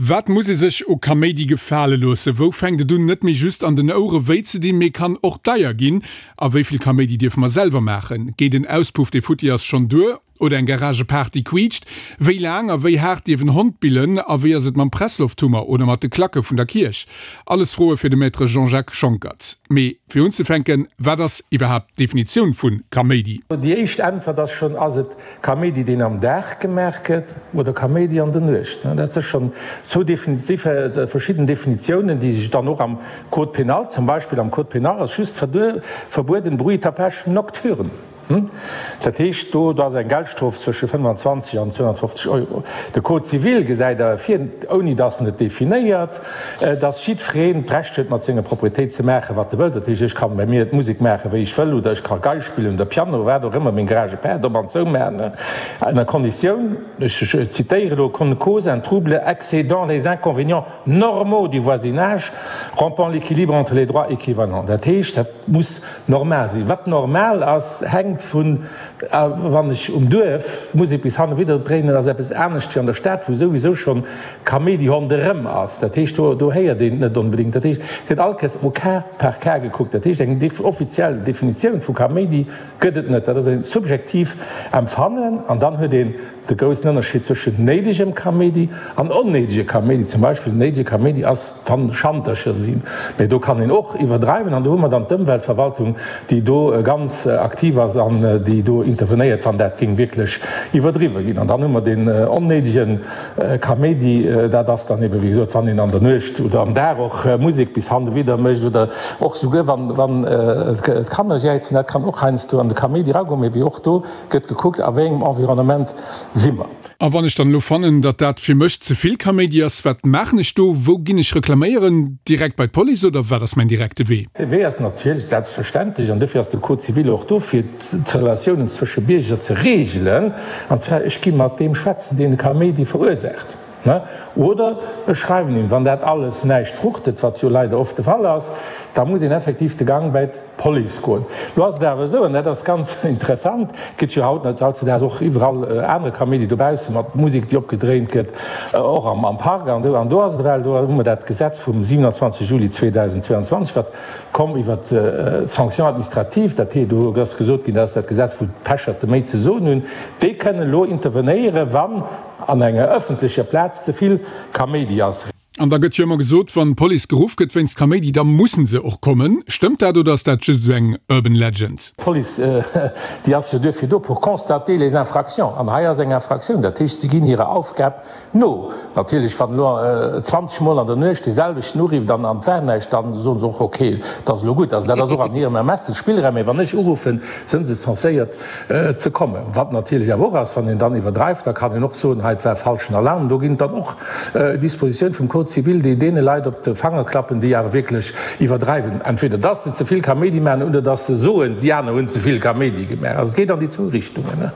Wat muss ee sech u Kaméidi gefale loossen? Wou fänkt et un net méi just an den Ouere wéi ze dinn, mee kann och deier ginn? A wéi vill Kaméidi dierfe mer selwer maachen? Geet en Auspuff dee futti ass schonn duer? Oder eng Garagepaart déi quiitscht? Wéi laang a wéi haart dierf en Hond billen? A wéi ass et mam Presslofthummer oder mat de Klacke vun der Kierch? Alles Froe fir de Maître Jean-Jacques Schonckert. Mee fir unzefänken, wat ass iwwerhaapt d'Definitioun vu Kaméidi? Déi éischt Äntwert ass schonn, Ass et Kaméidi, deen am Dag gemaach gëtt, oder Kaméidi an der Nuecht? Dat si schonn zwou verschidden Definitiounen, déi sech dann och am Code pénal, zum Beispill am Code pénal ass just verbueden bruit tapage nocturne. Dat heescht, do ass eng Geldstrof zwësche 25 an 250 Euro. De Code civil gesäit awer vir, ouni datt en et definéiert, datt jiddwereen d'Recht huet, mat senger Proprietéit ze maachen, wat e wëllt. Dat heescht, ech kann bei mir d'Musek maachen, wéi ech wëll, oder ech ka Gei spillen oder Piano, wat och ëmmer, meng Garagepaart op an zou maachen, ënner Konditioun, ech zitéiere elo, qu'on ne cause un trouble excédant les inconvénients normaux du voisinage, rompant l'équilibre entre les droits équivalents. Dat heescht, dat muss Normal sinn. Wat normal ass, hänkt vun, wann ech um Duerf Musek bis hannewidder dréinen, ass eppes anescht wéi an der Stad, wou souwisou schonn Kaméidi ronderëm ass. Dat heescht, do do héiert een et net onbedéngt. Dat heescht, et gëtt all Kéiers au cas par cas gekuckt. Dat heescht, eng offiziell Definitioun vu Kaméidi gëtt et net. Dat ass e subjektiv Empfannen. An dann huet een de groussen Ënnerscheed zwëschen néidegem Kaméidi an onnéidege Kaméidi. Zum Beispill, néidege Kaméidi ass, Kann Schantercher sinn, mee do kann een och iwwerdreiwen an do hu mer dann d'Ëmweltverwaltung, déi do ganz aktiv ass an déi do intervenéiert, wann dat géing wierklech iwwerdriwwe ginn. An dann hu mer deen onnéidege Kaméidi, dat ass dann ebe wéi gesot, wann een an der Nuecht oder am Dag och Musek bis hannewidder mécht oder och souguer wann wann d'Kanner jäizen, dat kann och heiansdo an de Kaméidi eragoen, mee wéi och do gëtt gekuckt, a wéi engem Environnement si mer. A wann ech dann elo fannen, datt dat fir mech ze vill Kaméidi ass, wat maachen ech do? Wou ginn ech reklaméieren? Direkt bei d'Police oder wat ass mäin direkte Wee? De Wee ass natierlech selbstverständlech, an dofir ass de Code civil och do, fir d'Relatiounen zwësche Bierger ze reegelen, an zwar, ech gi mat deem schwätzen, deen de Kaméidi verursaacht, oder ech schreiwen him. Wann dat alles näischt fruchtet, wat jo leider oft de Fall ass, da muss een effektiv de Gang bei Police goen. Lo ass et awer esou, an dat ass ganz interessant, et gëtt jo haut, hautzedaags och iwwerall anere Kaméidi dobausse mat Musek, déi opgedréint gëtt, och am Park an esou. An do ass et ewell, do hu mer dat Gesetz vum 27 Juli 2022, wat komm iwwert d'Sanctions administratives, dat heescht, do ass gesot ginn, dat ass dat Gesetz, wou d'Pecherte méi ze soen hunn, déi kënnen elo intervenéieren, wann an enger ëffentlecher Plaz ze vill Kaméidi ass. An da gëtt jo ëmmer gesot, wann d'Police geruff gëtt wéinst Kaméidi, da mussen se och kommen. Stëmmt dat oder ass dat just esou eng urban legend? D'Police, déi ass jo duerfir do, pour constater les infractions. An hei ass eng Infraktioun. Dat heescht, si ginn hirer Aufgab no. Natierlech, wann elo 20 Mol an der Nuecht dee selwechten urifft an et war näischt, da soen se och, okay, et ass elo gutt. Also dat ass och an hirem Ermessensspillraum. Mee wann ech uruffen, sënn se censéiert ze kommen. Wat natierlech awer och ass, wann een dann iwwerdreift, da kann een och soen, hei, et war falschen Alarm. Do ginn et dann och Dispositioun vum Code civil, déi deene Leit op de Fanger klappen, déi awer wierklech iwwerdreiwen, entweder dass se ze vill Kaméidi maachen oder dass se soen, déi aner hunn ze vill Kaméidi gemaach. Also et geet an déi zwou Richtungen.